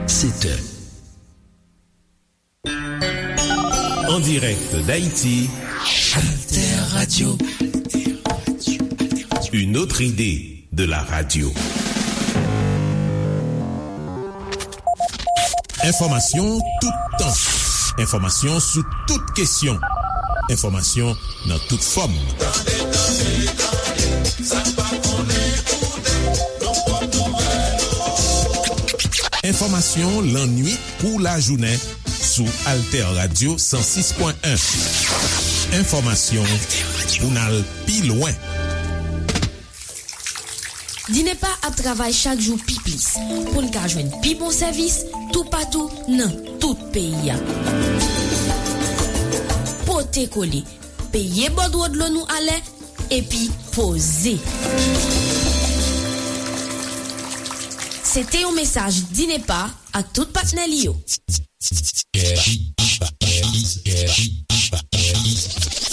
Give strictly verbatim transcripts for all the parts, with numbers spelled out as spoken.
Sept heures. En direct d'Haïti, Alter Radio. Une autre idée de la radio. Enfòmasyon toutan. Enfòmasyon sou tout kesyon. Enfòmasyon nan tout fòm. Tande, tande, tande, sa n pa konnen koute, nou pran nouvèl. Enfòmasyon lannuit kou lajounen sou Alter Radio san sis pwen en. Enfòmasyon pou n al pi lwen. Dinepa ap travay chak jou pi plis pou n ka jwenn pi bon sèvis toupatou nan tout peyi a. Pote kole, peye bòdwo dlo nou alè, epi poze. Se te yon mesaj Dinepa ak tout patnè li yo.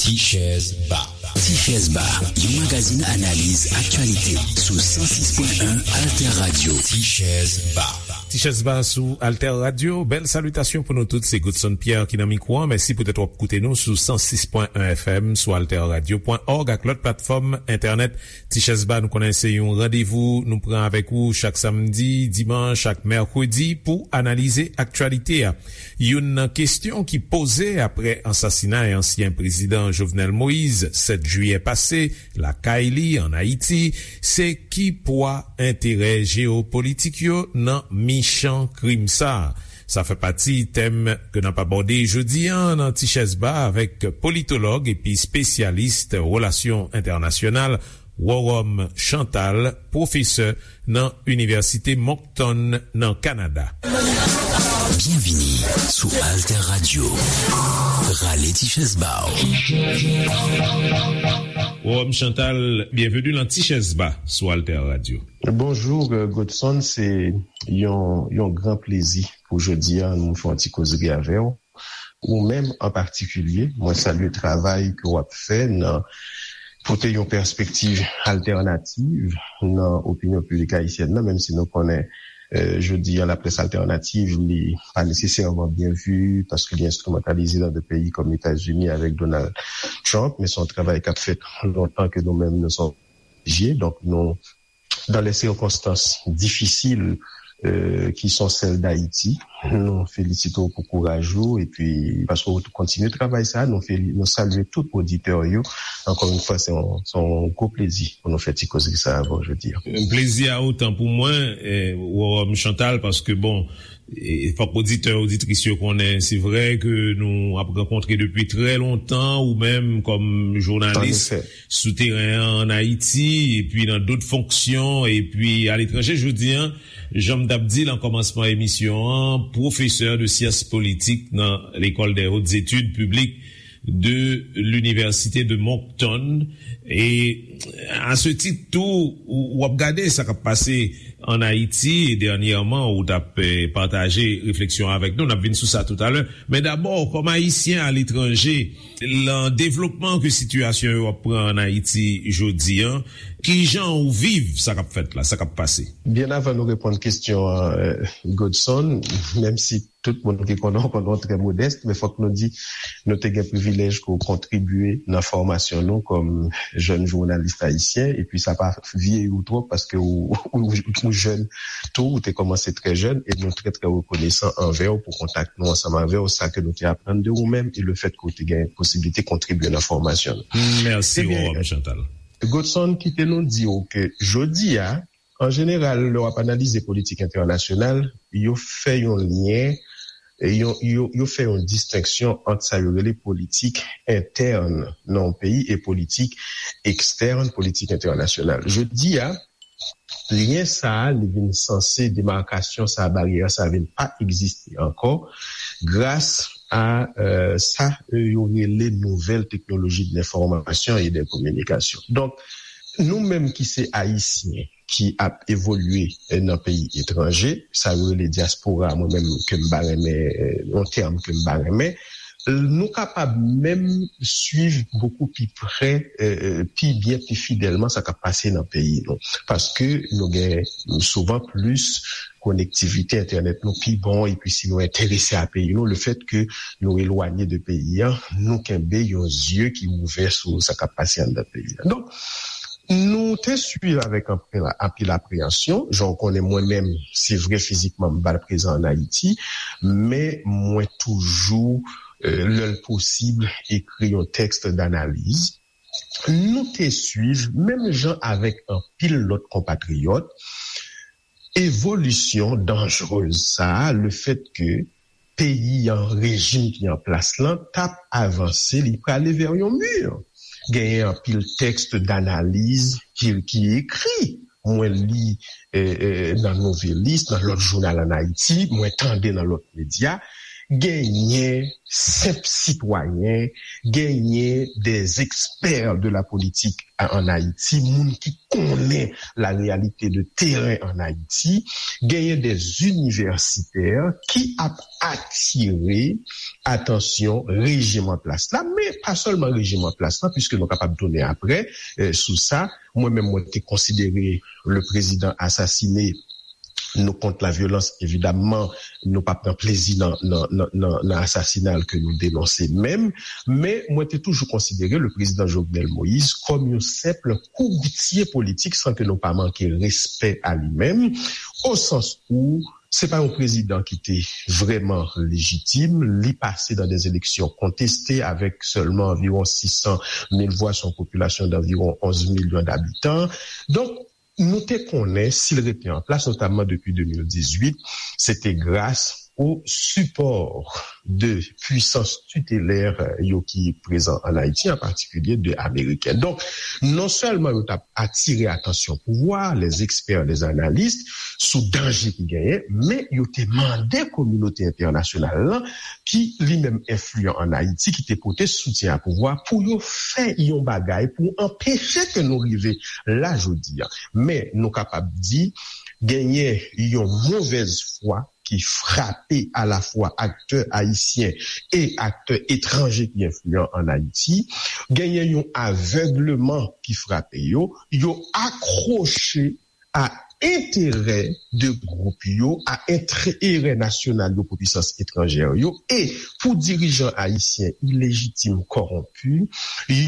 Tichèz Ba. Tichèz Ba, yon magazin analiz aktyalite sou san sis pwen en Alter Radio. Tichèz Ba. Tichèz Ba sou Alter Radio. Bèl salitasyon pou nou tout. Se Godson Pierre ki nan mikwo an. Mèsi poutèt w ap koute nou sou san sis pwen en F M, sou alter radio pwen org ak lòt platfòm entènèt. Tichèz Ba, nou konnen se yon randevou nou pran avèk ou chak samdi, dimanch ak mèkredi pou analize aktyalite a. Youn nan kesyon ki poze apre ansasinay ansyen prezidan Jovenel Moïse, sèt jiyè pase, lakay li, ann Ayiti, se ki pwa enterè jeyopolitik yo nan michan krim sa a? Sa fè pati tèm ke n ap abòde jodi a nan Tichèz Ba avèk politològ epi espesyalis relasyon entènasyonal, Worom Chantal, pwofesè nan Inivèsite Moncton nan Kanada. Byenvini sou Alter Radio. Rale ti chèz ba w. Worom Chantal, byenveni nan Tichèz Ba sou Alter Radio. Bonjou, euh, Godson, se yon, yon gran plezi pou jodi a nou fè yon ti kozri avè w. Ou menm an patikilye, mwen salye travay ke w ap fè nan pote yon pèspektiv altènativ nan opinyon piblik ayisyèn nan, menm si nou konnen, euh, jodi a, laprès altènativ, li pa nesesèman byen vi, paske li enstrimantalize nan de peyi kòm Etazini avèk Donald Trump, men se yon travay k ap fèt lontan ke nou menm nou se oblije. Donk, nou dans les circonstances difficiles, euh, qui sont celles d'Haïti. Nou felisite w pou kouraj ou, epi paske w kontinye travay sa, nou feli-, nou salye tout oditè yo. Ankò yon fwa, se yon, se yon gwo plezi pou nou fè ti kozri sa avè w jodi a. Plezi a otan pou mwen, eh, Worom Chantal, paske, bon, e, fòk oditè, oditris yo konnen, se vre ke nou ap rankontre depi trè lontan, ou menm kòm jounalis sou teren an, ann Ayiti, epi nan dòt fonksyon, epi aletranje. Jodi a, jan m t ap di nan kòmansman emisyon an, pwofesè de syans politik nan L'école des hautes études publiques de l'Université de Moncton. E a se tit tou, ou, w ap gade sa k ap pase ann Ayiti, e dènyèman, ou t ap, eh, pataje refleksyon avèk nou. N ap vin sou sa toutalè. Men dabò, kòm Ayisyen aletranje, nan devlopman ke sitiyasyon yo ap pran ann Ayiti jodi a, kijan ou viv sa k ap fèt la, sa k ap pase? Byen avan nou reponn kesyon an, eh, Godson, menm si tout moun ki konnen w konnen w trè modès, men fòk nou di, nou te gen privilèj ke w kontribye nan fòmasyon nou kòm jèn jounalis ayisyen, epi sa pa vyeyi w twòp, paske w, w, w jèn tou, w te kòmanse trè jèn, e nou trè, trè rekonesan anvè w pou kontak nou ansanm avè w, sa ke nou te aprann de ou menm, e le fèt ke w te gen posiblite kontribye nan fòmasyon nou. Mèsi, Worom Chantal. Godson, kite nou di w ke jodi a, an jeneral, lè w ap analize politik entènasyonal, yo fè yon lyen, e yo, yo, yo fè yon distenksyon ant sa yo rele politik entèn nan yon peyi e politik ekstèn, politik entènasyonal. Jodi a, lyen sa a, li vin sanse, demakasyon sa a, baryè sa a vin pa egziste ankò, gras a, euh, sa, euh, yo rele nouvèl teknoloji de lenfòmasyon e de kominikasyon. Donk, nou menm ki se Ayisyen, ki ap evolye, eh, nan peyi etranje, sa yo rele dyaspora, mwen menm ke m pa renmen, eh, yon tèm ke m pa renmen, nou kapab menm swiv bokou pi prè, eh, eh, pi byen, pi fidèlman sa k ap pase nan peyi nou. Paske nou gen souvan plis konektivite entènèt nou pi bon, epi si nou enterese a peyi nou, lefèt ke nou elwanye de peyi a, nou kenbe yon zye ki ouvè sou sa k ap pase anndan peyi a. Donk, nou te swiv avèk anpil, anpil apreyansyon. Jan w konnen, mwen menm, se vre, fizikman, m pa t prezan ann Ayiti, men mwen toujou, euh, lè l posib, ekri yon tèks danaliz. Nou te swiv, menm jan avèk anpil lòt konpatriyòt, evolisyon danjrez sa a, lefèt ke peyi an, rejim ki an plas lan, t ap avanse, li prale vè yon mi. Genyen anpil tèks danaliz ki, ki ekri. Mwen li, eh, eh, nan Nouvelliste, nan lòt jounal ann Ayiti, mwen tande nan lòt medya. Genyen senp sitwayen, genyen des experts de la politique en Haïti, moun ki konnen la réalité de terrain en Haïti, genyen des universitaires ki ap atire atansyon rejim an plas la, men pa sèlman rejim an plas la, puiske nou kapab tounen apre, eh, sou sa. Mwen menm, mwen te konsidere le président assassiné, nous, contre la violence, évidemment, nou p ap pran plezi nan, nan, nan, nan, nan asasina l ke nou denonse menm, men mwen te toujou konsidere le président Jovenel Moïse kòm yon senp kourtye politik, san ke nou pa manke respè a li menm, o sans où se pa yon prezidan ki te vrèman lejitim. Li pase dans des élections contestées avec seulement environ six cent mille voix sur une population d'environ onze millions d'habitants. Donk, nou te konnen, si l rete an plas, notamman depi de mil dizuit, se te gras o sipò de pwisans titelè yo ki prezan ann Ayiti, an patikilye de Ameriken. Donk, non sèlman yo t ap atire atansyon pouvwa, les experts, les analystes, sou danje ki genyen, men yo te mande kominote entènasyonal lan, ki li menm enfliyan ann Ayiti, ki te pote soutyen a pouvwa, pou yo fè yon bagay pou anpeche ke nou rive la jodi a. Men nou kapab di, genyen yon movèz fwa ki frape alafwa aktè ayisyen e aktè etranje ki enfliyan ann Ayiti. Genyen yon avègleman ki frape yo. Yo akwoche a enterè de gwoup yo, a enterè nasyonal yo pou pwisans etranjè yo, e pou dirijan ayisyen ilejitim, kòwonpi,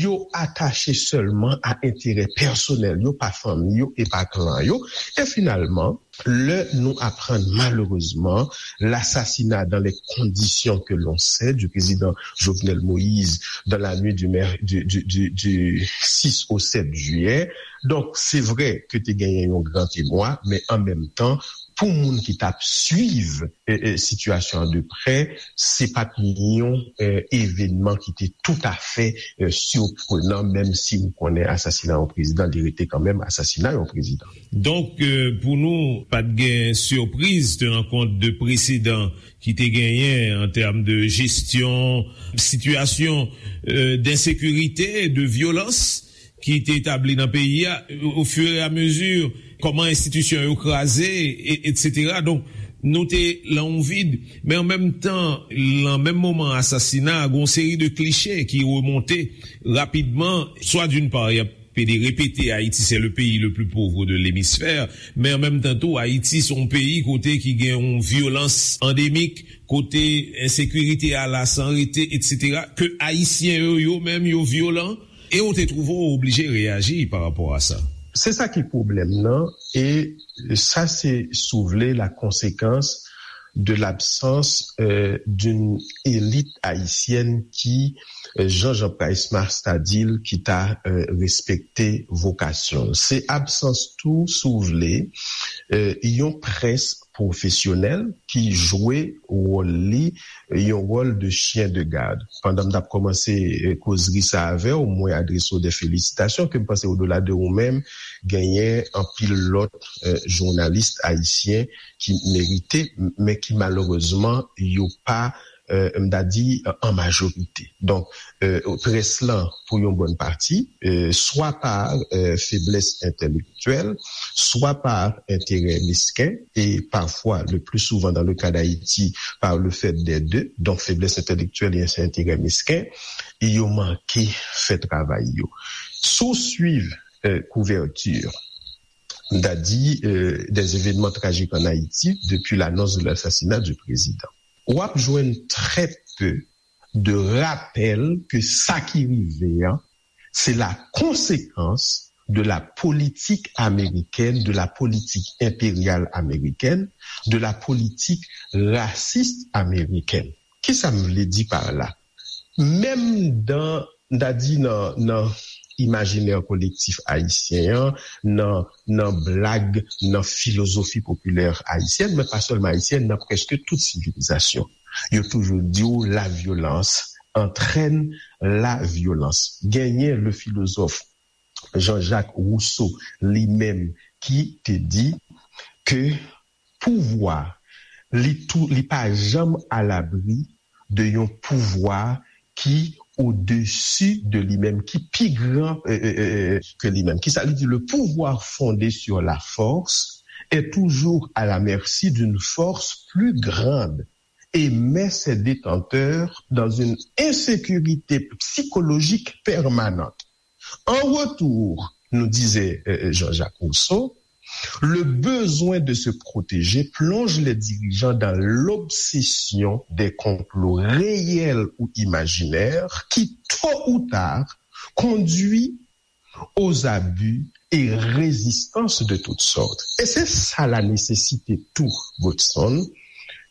yo atache sèlman a enterè pèsonèl yo, pa fanmi yo e pa klan yo. E finalman, lè nou aprann malerezman lasasina dans les conditions que l'on sait du président Jovenel Moïse dans la nuit du, mer- du, du, du, du six au sept juillet. Donk, se vre ke te genyen yon gran emwa, men an menm tan, pou moun ki t ap swiv, eh, eh, sitiyasyon an de prè, se pa t yon, eh, evenman ki te toutafè, eh, siprenan, menm si ou konnen asasina yon prezidan, li rete kanmenm asasina yon prezidan. Donk, eh, pou nou, pa t gen sipriz, tenan kont de presedan ki te genyen an tèm de jesyon, sitiyasyon, eh, densekirite, de vyolans ki te etabli nan peyi a, o fur e a mezi, kòman enstitisyon yo kraze, e, etsetera. Donk, nou te lan yon vid, men an menm tan, lan menm moman asasina a, gen yon seri de klise ki remonte rapidman, swa d'une part, y ap pede repete, Ayiti, c'est le pays le plus pauvre de l'hémisphère, men an menm tan tou, Ayiti, se yon peyi kote ki gen yon vyolans andemik, kote ensekirite a la san rete, etsetera, ke Ayisyen yo, yo menm, yo vyolan, e ou te twouve w oblije reyaji pa rapò a sa. Se sa ki pwoblèm nan, e sa se, si w vle, la conséquence de l'absence, euh, d'une élite haïtienne qui, euh, jan Jean Price Mars ta di l, ki ta, euh, respekte vokasyon l. Se absans tou, si w vle, euh, yon près pwofesyonèl ki jwe wòl li, yon wòl de chyen de gad. Pandan m t ap kòmanse, eh, kozri sa avè w, mwen adrese w de felisitasyon ke m panse, odola de ou menm, genyen anpil lòt, eh, jounalis ayisyen ki merite, m- men ki malerezman, yo pa, eh, m ta di, eh, an majorite. Donk, eh, près lan, pou yon bòn pati, eh, swa pa, eh, feblès entèlektyèl, swa pa enterè mesken, e pafwa, le plus souvent dans le cas d'Haïti, par le fait des deux, donk feblès entèlektyèl e enterè mesken, e yo manke fè travay yo. Si w swiv, eh, kouvèti m ta di, euh, des événements tragiques en Haïti depuis l'annonce de l'assassinat du président. W ap jwenn très peu de rapèl ke sa ki rive an, se la konsekans de la politique américaine, de la politique impériale américaine, de la politique raciste américaine. Kisa m vle di pa la? Menm dan, m ta di nan, nan imajinè kolektif ayisyen an, nan, nan blag, nan filozofi popilè ayisyèn, men pa sèlman ayisyèn, nan prèske tout sivilizasyon. Yo toujou di w la violence entraîne la violence. Genyen le philosophe Jean-Jacques Rousseau li menm ki te di ke pouvwa, li tou, li pa janm alabri de yon pouvwa ki au-dessus de lui-même, ki pi gran euh, euh, euh, ke li menm. Kisa li di? Le pouvoir fondé sur la force est toujours à la merci d'une force plus grande et met ses détenteurs dans une insécurité psychologique permanente. En retour, nous disait euh, Jean-Jacques Rousseau, le besoin de se protéger plonge les dirigeants dans l'obsession des complots réels ou imaginaires qui, tôt ou tard, conduit aux abus et résistances de toutes sortes. Et c'est ça la nécessité tout, Godson,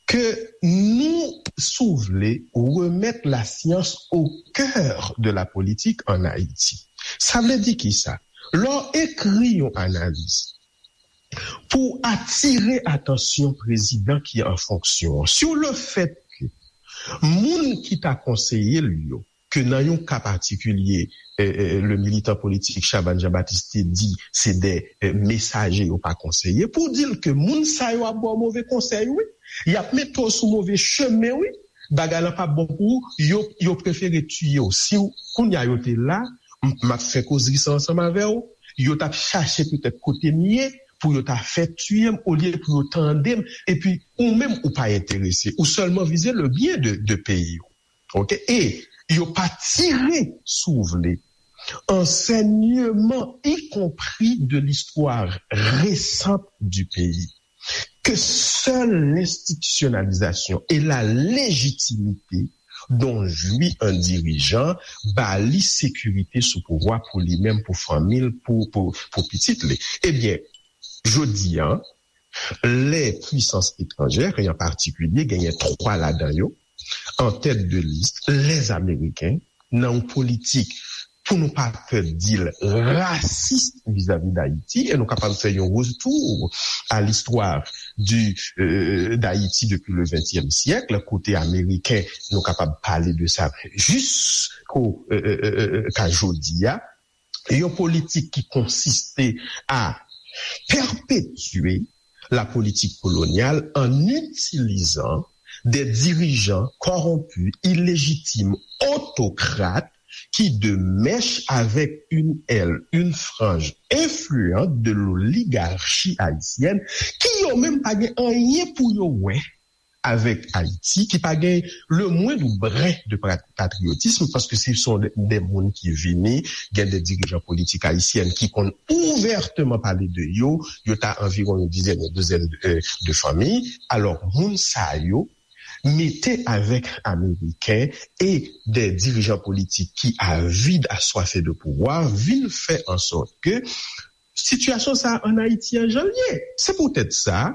ke nou, si w vle, remèt la science au cœur de la politique en Haïti. Sa vle di ki sa? Lè w ekri yon analiz pou atire atansyon prezidan ki an fonksyon an, sur le fait que moun ki ta konseye l yo, ke nan yon ka patikilye, eh, eh, le militan politik Chabannes Jean-Baptiste te di se de eh, mesaje, yo pa konseye, pou di l ke moun sa yo ap ba w move konsèy, wi. Y ap mete w sou move chemen, wi. Bagay lan p ap bon pou ou, yo, yo prefere tiye w. Si w, kounye a yo te la, m, m ap fè kozri sa ansanm avè w, yo t ap chache petèt kote m ye, pou yo ta fè tiye m, olye pou yo tande m, epi ou menm ou pa enterese, ou sèlman vize le byen de, de peyi w. Ok? E yo pa tire, si w vle, enseignement, y compris de l'histoire récente du pays, que seule l'institutionnalisation et la légitimité dont jouit un dirigeant ba li sécurité sou pouvwa pou li menm, pou fanmi l, pou, pou, pou pitit li. Ebyen, jodi a, les puissances étrangères, et en particulier, genyen twa ladan yo, en tête de liste, les Américains, nan yon politik, pou nou pa pè di l, rasis vizavi Dayiti, e nou kapab fè yon retour à l'histoire du, euh, d'Haïti depuis le vingtième siècle, kote Ameriken, nou kapab pale de sa jisko, euh, euh, euh, euh, ka jodi a, yon politik ki konsiste à perpétuer la politique coloniale en utilisant des dirigeants corrompus, illégitimes, autocrates, qui, de mèche avec une aile, une frange influente de l'oligarchie haïtienne, ki yo menm pa gen anyen pou yo wè avèk Ayiti, ki pa gen le moindre brin de pra-, patriotisme, paske se son de, de moun ki vini, gen de dirijan politik ayisyen ki konn ouvèteman pale de yo, yo ta anviwon yon dizèn, yon dizèn de, de fanmi. Alò, moun sa yo, mete avèk Ameriken e de dirijan politik ki avid, aswafe de pouvwa, vin fè an sòt ke sitiyasyon sa a ann Ayiti an jan l ye. Se poutèt sa,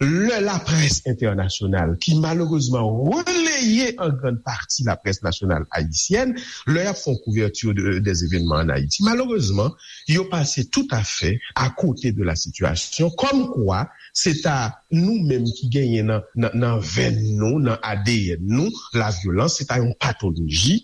lè laprès entènasyonal, ki malerezman releye an grann pati laprès nasyonal ayisyèn, lè y ap fè yon kouvèti de, des événements en Haïti, malerezman, yo pase toutafè akote de la sitiyasyon, kòmkwa se ta nou menm ki genyen nan, nan, nan venn nou, nan A D N nou, la vyolans, se ta yon patoloji,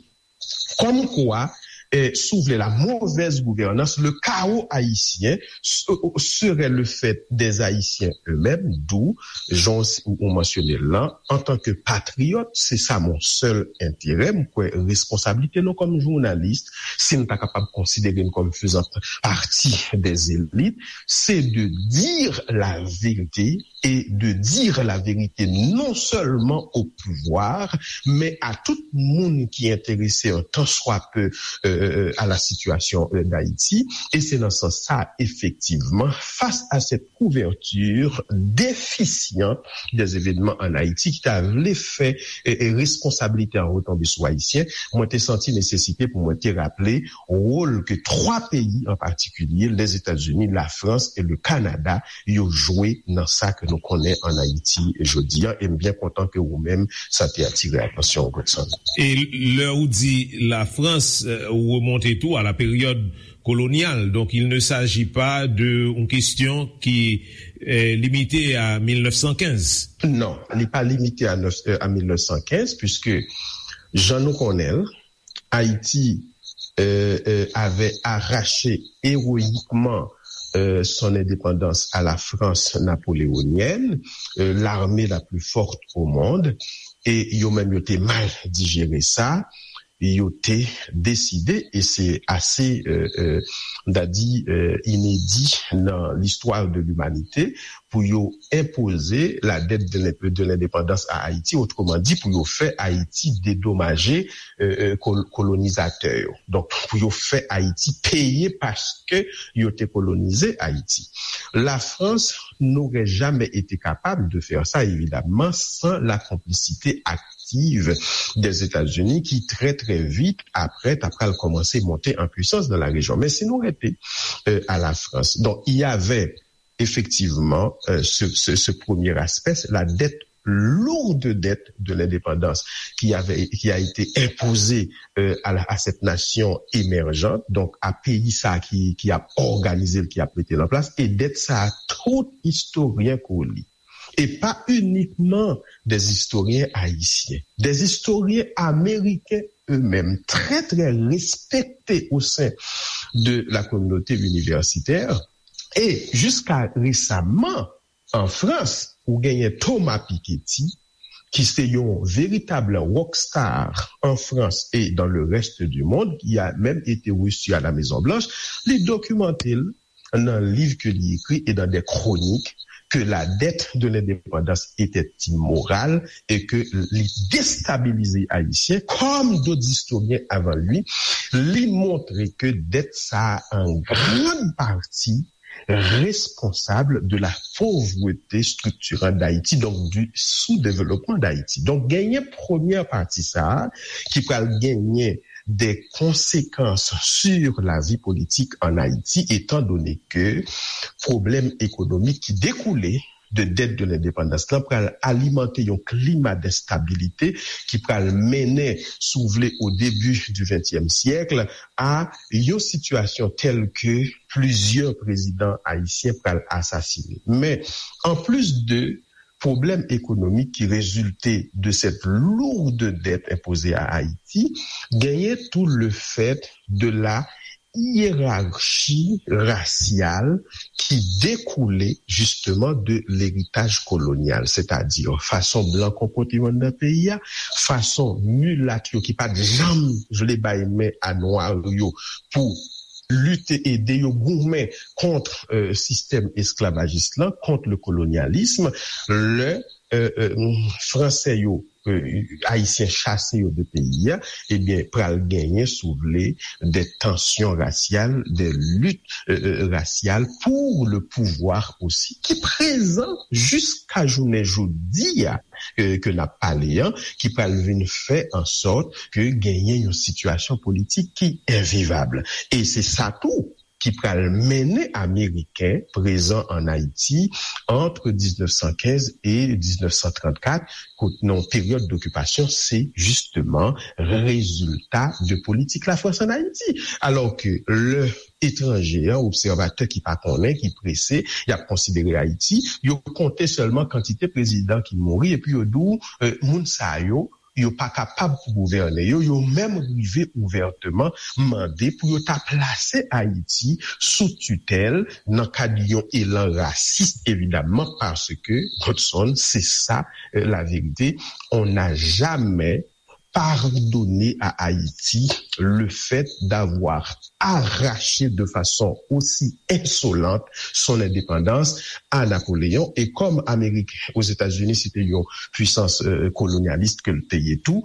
kòmkwa, eh, si w vle, la mauvaise gouvernance, le chaos haïtien, se-, serait le fait des Haïtiens eux-mêmes, d'où, jan w, ou mansyone l lan, antanke patriyòt, se sa mon seul intérêt, m kwè responsablite nou kòm jounalis, si n ta kapab konsidere n kòm faisant partie des élites, c'est de dire la vérité et de dire la vérité non seulement au pouvoir, mais à tout moun ki enterese, un tant soit peu, euh, euh, à la situation, euh, d'Haïti. Et c'est dans ce sens-là, effectivement, face à cette couverture déficiente des événements en Haïti, ki ta vle fè, euh, euh, responsabilité an retonbe sou Ayisyen, mwen te santi nesesite pou mwen te raple wòl ke twa peyi an patikilye, Lèzetazini, Lafrans e le Kanada, yo jwe nan sa ke nou konnen an Ayiti jodi a. E m byen kontan ke ou menm, sa te atire atansyon w, Godson. E lè ou di Lafrans, euh, ou remonte tou a la période coloniale. Donc, il ne s'agit pas de une question qui est limitée à mille neuf cent quinze. Non, li pa limite a, nèf, euh, a mil nèf san kenz, puisque jan nou konnen l, Haïti, euh, euh, avait arraché héroïquement, euh, son indépendance à la France napoléonienne, euh, l'armée la plus forte au monde, e yo menm yo te mal dijere sa, yo te deside, e se ase, euh, euh, m ta di, euh, inedi nan listwa de limanite, pou yo enpoze la dette de l'in-, de l'indépendance à Haïti, otreman di, pou yo fè Ayiti dedomaje, euh, euh, kol-, kolonizatè yo. Donk, pou yo fè Ayiti peye paske yo te kolonize Ayiti. La France n'aurait jamais été capable de faire ça, évidemment, sans la complicité active des États-Unis, qui très, très vite après, t ap pral kòmanse monte an pwisans nan la rejyon. Men si nou rete, euh, a la Frans, donk, il y avait effectivement, euh, ce, ce, ce premier aspect, la dette, lourde dette de l'indépendance qui avait, qui a été imposée, euh, à la, à cette nation émergente, donc à peyi sa ki, ki ap òganize l, ki ap mete l an plas, e dèt sa a, tout istoryen ko li, et pas uniquement des historiens haïtiens, des historiens américains eux-mêmes, très, très respectés au sein de la communauté universitaire, et jusqu'à récemment, an Frans, ou genyen Thomas Piketty, ki se yon veritab rockstar en France et dans le reste du monde, qui a même été reçu à la Maison Blanche, li dokimante l nan liv ke li ekri et dans des chroniques que la dette de l'indépendance était immorale et que li destabilize Ayisyen, comme d'autres historiens avant lui, li montre ke dèt sa a, en grande partie, responsable de la pauvreté structurante d'Haïti, donc du sous-développement d'Haïti. Donk, genyen premyè pati sa a ki pral genyen des conséquences sur la vie politique en Haïti, étant donné que pwoblèm ekonomik ki dekoule de dèt de lendepandans lan pral alimante yon klima denstabilite ki pral mennen, si w vle, au début du vingtième siècle, a yon sitiyasyon tèl ke plizyè prezidan ayisyen pral asasine. Men, an plis de pwoblèm ekonomik ki rezilte de cette lourde dette imposée à Haïti, genyen tou le fait de la hiérarchie raciale qui découlait justement de l'héritage colonial, c'est-à-dire fason blan konpòte yo anndan peyi a, fason milat yo ki pa t janm vle bay men a nwa yo pou lite, ede yo goumen kont, euh, sistèm esklavajis lan, kont le colonialisme, lè, euh, euh, Fransè yo, euh, Ayisyen chase yo de peyi a, ebyen, pral genyen, si w vle, des tensions raciales, des luttes, euh, euh, raciales pour le pouvoir aussi, ki prezan jiska jounen jodi a, euh, ke n ap pale an, ki pral vin fè an sòt ke genyen yon sitiyasyon politik ki envivab. E se sa tou ki pral mennen Ameriken prezan an Ayiti ant diznèf san kenz e diznèf san trannkat, kot nan peryòd dokipasyon, se jisteman rezilta de politik Lafrans an Ayiti. Alò ke lè etranje an, obsèvatè ki pa konnen, ki prese, y ap konsidere Ayiti, yo konte sèlman kantite prezidan ki mouri, epi yo di w, euh, moun sa yo, yo pa kapab pou gouvène yo, yo menm rive ouvèteman mande pou yo ta plase Ayiti sou titèl nan kad yon elan rasis, evidamman, paske, Godson, se sa, euh, la vérité, on n'a jamais pardonner à Haïti le fait d'avoir arraché de façon aussi insolente son indépendance à Napoléon. Et comme Amérique, aux États-Unis, c'était une puissance euh, colonialiste que le pays et tout,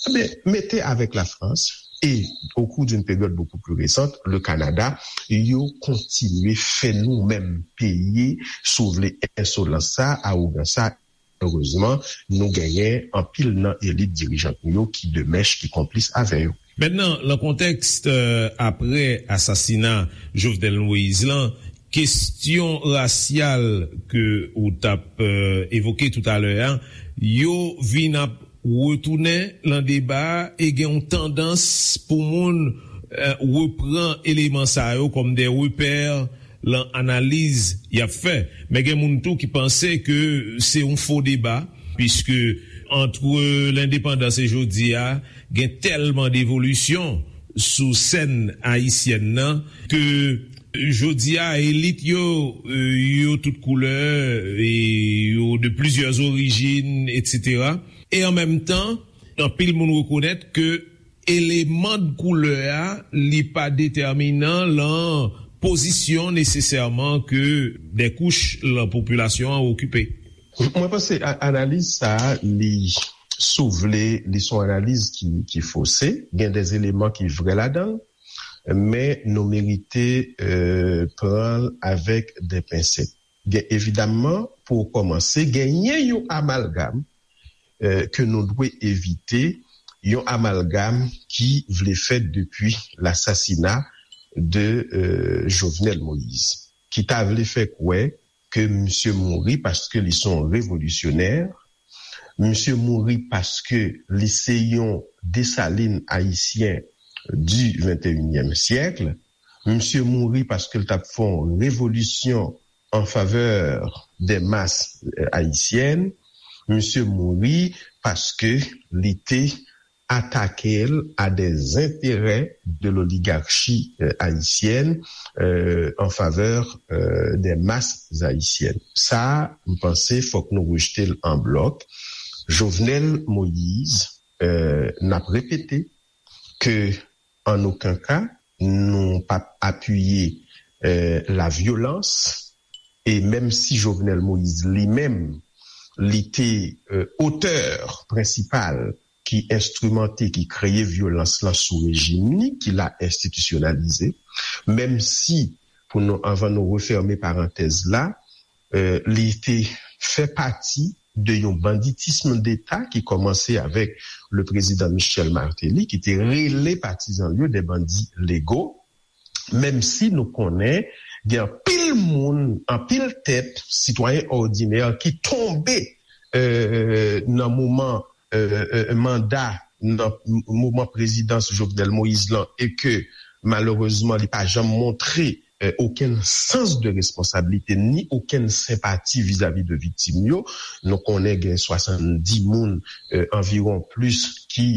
eh bien, mettez avec la France et au cours d'une période beaucoup plus récente, le Canada, ils ont continué à faire nous-mêmes payer, sauver l'insolence, ça, arrogance, ça, Erezman, nou genyen anpil nan elit dirijan nou yo ki de mèch, ki konplis avè yo. Mentnan, nan kontèks apre asasina Jovenel Moïse lan, kesyon rasyal ke ou t ap evoke toutalè a, yo vin ap retounen nan deba a e gen yon tandans pou moun repran eleman sa yo kòm de repè lan analiz y ap fè. Men gen moun tou ki panse ke se yon fo deba, piske antre lendepandans e jodi a, gen tèlman devolisyon sou sèn ayisyèn nan ke jodi a, elit yo, yo tout koulè e yo de plizyè orijin, etsetera. E an menm tan, anpil moun rekonèt ke eleman de koulè a, li pa detèminan lan pozisyon nesesèman ke de kouch lan popilasyon an okipe. Mwen panse analiz sa a, li, si w vle, li se yon analiz ki, ki fose. Gen de eleman ki vre ladan l, men nou merite pran l avèk de pensèt. Gen, evidamman, pou kòmanse, genyen yon amalgam ke nou dwe evite, yon amalgam ki vle fèt depi lasasina de Jovenel Moïse, ki ta vle fè kwè ke misye mouri paske li se yon revolisyonè, misye mouri paske li se yon Desalin ayisyen di venteyinyèm syèk, misye mouri paske l t ap fè yon revolisyon an favè de mas ayisyèn, misye mouri paske li te atake l a de enterè de loligachi ayisyèn an favè de mas ayisyèn. Sa a, m panse fòk nou rejte l an blòk. Jovenel Moïse, n ap repete ke an okenn ka, nou p ap apiye lavyolans, e menm si Jovenel Moïse li menm, li te otè prensipal ki enstrimante, ki kreye vyolans lan sou rejim li, ki la enstitisyonalize, menm si, pou nou, anvan nou refèmen parantèz la, li te fè pati de yon banditism deta ki kòmanse avèk le prezidan Michel Martelly, ki te rele patizan l yo de bandi lego, menm si nou konnen gen anpil moun, anpil tèt, sitwayen òdinè ki tonbe nan moman manda, nan moman prezidans Jovenel Moïse lan, e ke malerezman li pa janm montre okenn sans de responsabilité ni okenn senpati vizavi de viktim yo. Nou konnen gen swasanndis moun anviwon plis ki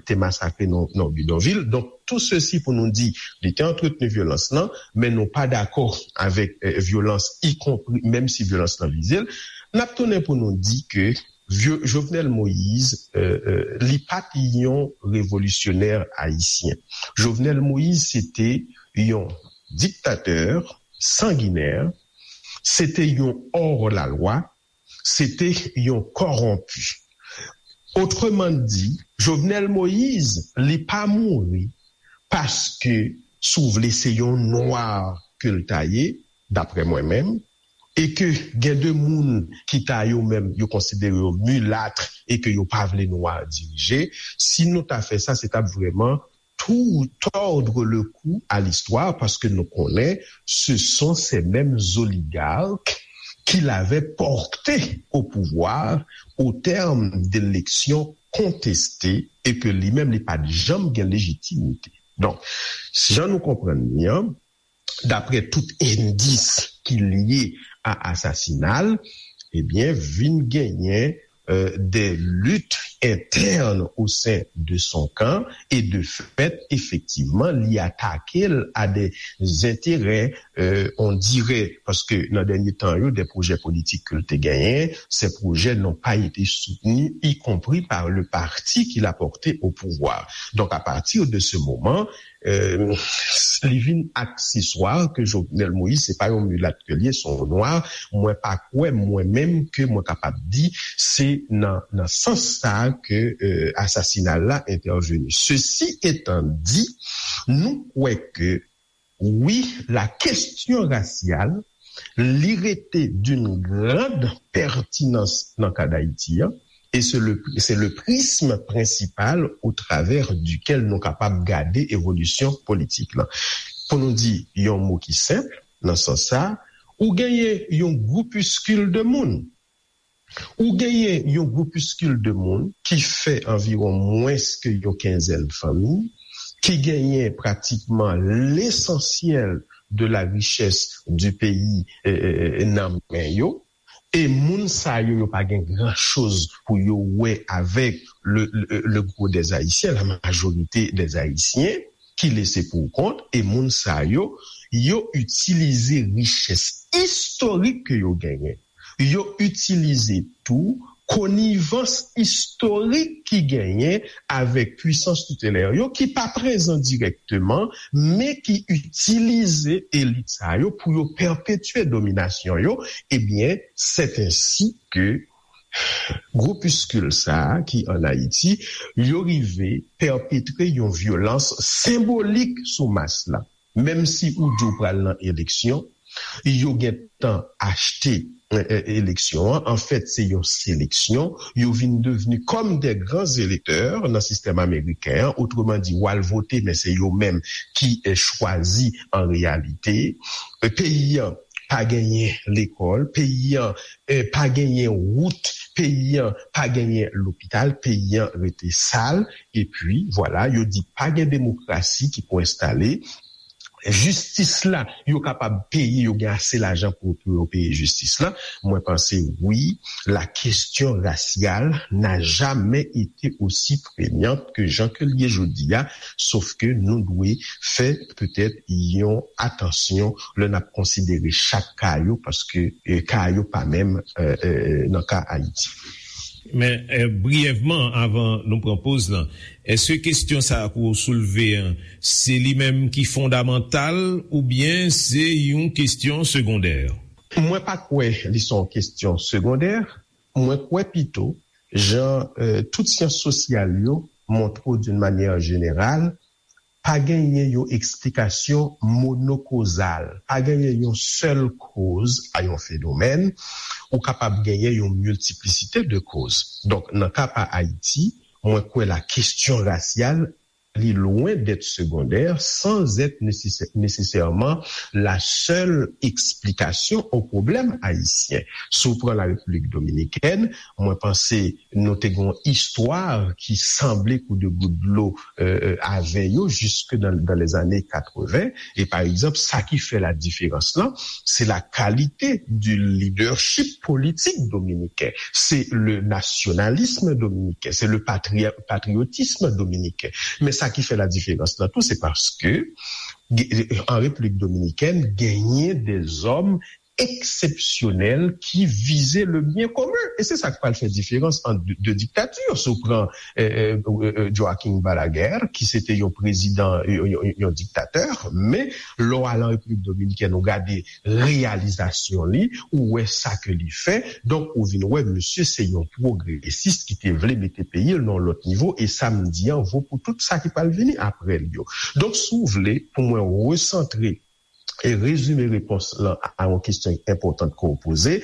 te masakre nan bidonvil. Donk, tou sesi pou nou di, li te antretni vyolans lan, men nou pa dakò avèk vyolans, ikonpri, menm si vyolans lan vize l. N ap tounen pou nou di ke Jovenel Moïse, li pa t yon revolisyonè ayisyen. Jovenel Moïse, se te yon diktatè sanginè, se te yon hors la loi, se te yon kòwonpi. Otreman di, Jovenel Moïse, li pa mouri paske, si w vle, se yon nwa ke l ta ye, daprè mwen menm, e ke gen de moun ki ta yo menm, yo konsidere yo milat e ke yo pa vle nwa dirije. Si nou ta fè sa, se t ap vrèman tou tòdre le kou a listwa, paske nou konnen se son se menm oligark ki l avè pòte o pouvwa o tèm de eleksyon konteste e ke li menm li pa t janm gen lejitimite. Donk, jan nou konprann li an, daprè tout endis ki lye a asasina l, ebyen, vin genyen de lit interne au sein de son camp et de fait, effectivement, li atake l à des intérêts, euh, on dirait, paske nan dènye tan yo, des projets politiques ke l te genyen, ces projets n'ont pas été soutenus, y compris par le parti qu'il a porté au pouvoir. Donc, à partir de ce moment, euh, li vin akseswa ke Jovenel Moïse, se pa yon milat ke li ye, se yon nwa. Mwen pa kwè, mwen menm, ke mwen kapab di, se nan, nan sans sa ke, euh, asasina la entèveni. Ceci étant dit, nou kwè ke, wi, la question raciale, li rete d'une grande pertinence nan ka Dayiti an, e se le, se le prisme principal au travers duquel nou kapab gade evolisyon politik lan. Pou nou di yon mo ki senp, nan sans sa, ou genyen yon groupiskil de moun. Ou genyen yon groupiskil de moun ki fè anviwon mwens ke yon kenzèn fanmi, ki genyen pratikman lesansyèl de la richès du peyi, eh, eh, eh, nan men yo. E moun sa yo, yo pa gen gran choz pou yo wè avèk le, le, le gros des Haïtiens, la majorité des Haïtiens, ki lese pou kont, e moun sa yo, yo itilize richès istorik ke yo genyen. Yo itilize tou konivans istorik ki genyen avèk pwisans toutelè yo, ki pa prezan dirèkteman, men ki itilize elit sa yo pou yo pèpetye dominasyon yo. Ebyen, c'est ainsi que groupiskil sa a ki ann Ayiti, yo rive pèpetre yon vyolans senbolik sou mas la. Menm si ou di w pral nan eleksyon, yo gentan achte, eh, eh, eleksyon an. Anfèt, se yon seleksyon. Yo vin devni kòm de gran elektè nan sistèm ameriken an. Otreman di, w al vote, men se yo menm ki, eh, chwazi an reyalite. Eh, peyi an pa genyen lekòl, peyi an, eh, pa genyen wout, peyi an pa genyen lopital, peyi an rete sal. Epi, vwala, yo di pa gen demokrasi ki pou enstale. Jistis la, yo kapab peye, yo gen ase lajan pou, pou yo peye jistis la. Mwen panse, wi, la question raciale n'a jamais été aussi prégnante que jan ke l ye jodi a, sof ke nou dwe fè petèt yon atansyon lè n ap konsidere chak ka yo, paske, eh, ka yo pa menm, eh, eh, nan ka Ayiti. Men, eh, briyèvman, avan nou pran poz lan, èske kesyon sa a ke w soulve an, se li menm ki fondamantal oubyen se yon kesyon segondè? Mwen pa kwè li se yon kesyon segondè. Mwen kwè pito, jan, eh, tout syans sosyal yo montre w d'une manière générale, pa genyen yon eksplikasyon monokozal, pa genyen yon sèl koz a yon fenomèn, ou kapab genyen yon miltiplisite de koz. Donk, nan ka pa Ayiti, mwen kwè la kesyon rasyal, li lwen dèt segondè, sans être nécessaire, nécessairement la seule explication au problème haïtien. Si w pran la Repiblik Dominikèn, mwen panse nou te gen yon istwa ki sanble kou de gout dlo, euh, euh, avè yo, jiske dans, dans les années quatre-vingts. E pa egzanp, sa ki fè la diferans lan, se la kalite du leadership politik dominiken. Se le nasyonalism dominiken, se le patri-, patriotisme dominiken. Men sa ki fè la diferans lan tou, se paske, an Repiblik Dominikèn, genyen de zòm eksepsyonèl ki vize le byen komen. E se sa k pral fè diferans ant de, de diktatè. Si w pran, eh, eh, eh, eh, Joaquin Balaguer, ki se te yon prezidan, yon, yon, yon diktatè, men lè w al an Repiblik Dominikèn, ou gade reyalizasyon li, ou wè sa ke li fè. Donk, ou vin wè, misye se yon pwogresis ki te vle mete peyi l nan yon lòt nivo, e sa m di an vo pou tout sa ki pral vini apre l yo. Donk, si w vle, pou mwen resantre e rezime repons lan a yon kesyon enpòtan ke w poze.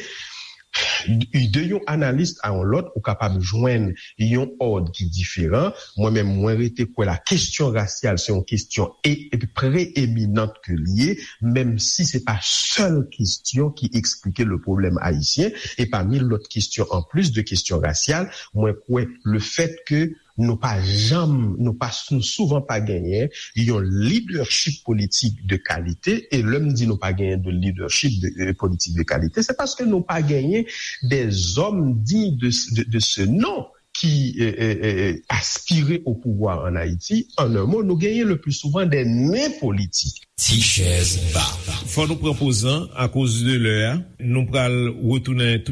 De yon analis a yon lòt, ou kapab jwenn yon òd ki diferan. Mwen menm, mwen rete kwè la kesyon rasyal se yon kesyon e, e preeminant ke l ye, menm si se pa sèl kesyon ki eksplike le pwoblèm ayisyen. E pami lòt kesyon, an plis de kesyon rasyal, mwen kwè le fèt ke nou pa janm, nou pa, nou souvan pa genyen yon leadership politik de kalite. E lè m di nou pa genyen de leadership de, de politik de kalite, se paske nou pa genyen des hommes dignes de, de, de ce nom qui euh, euh, euh, aspiraient au pouvoir en Haïti, en un mot, nous gagnons le plus souvent des nains politiques. T-Chèz Ba. Fò nou pran poz lan akoz de lè a. Nou pral retounen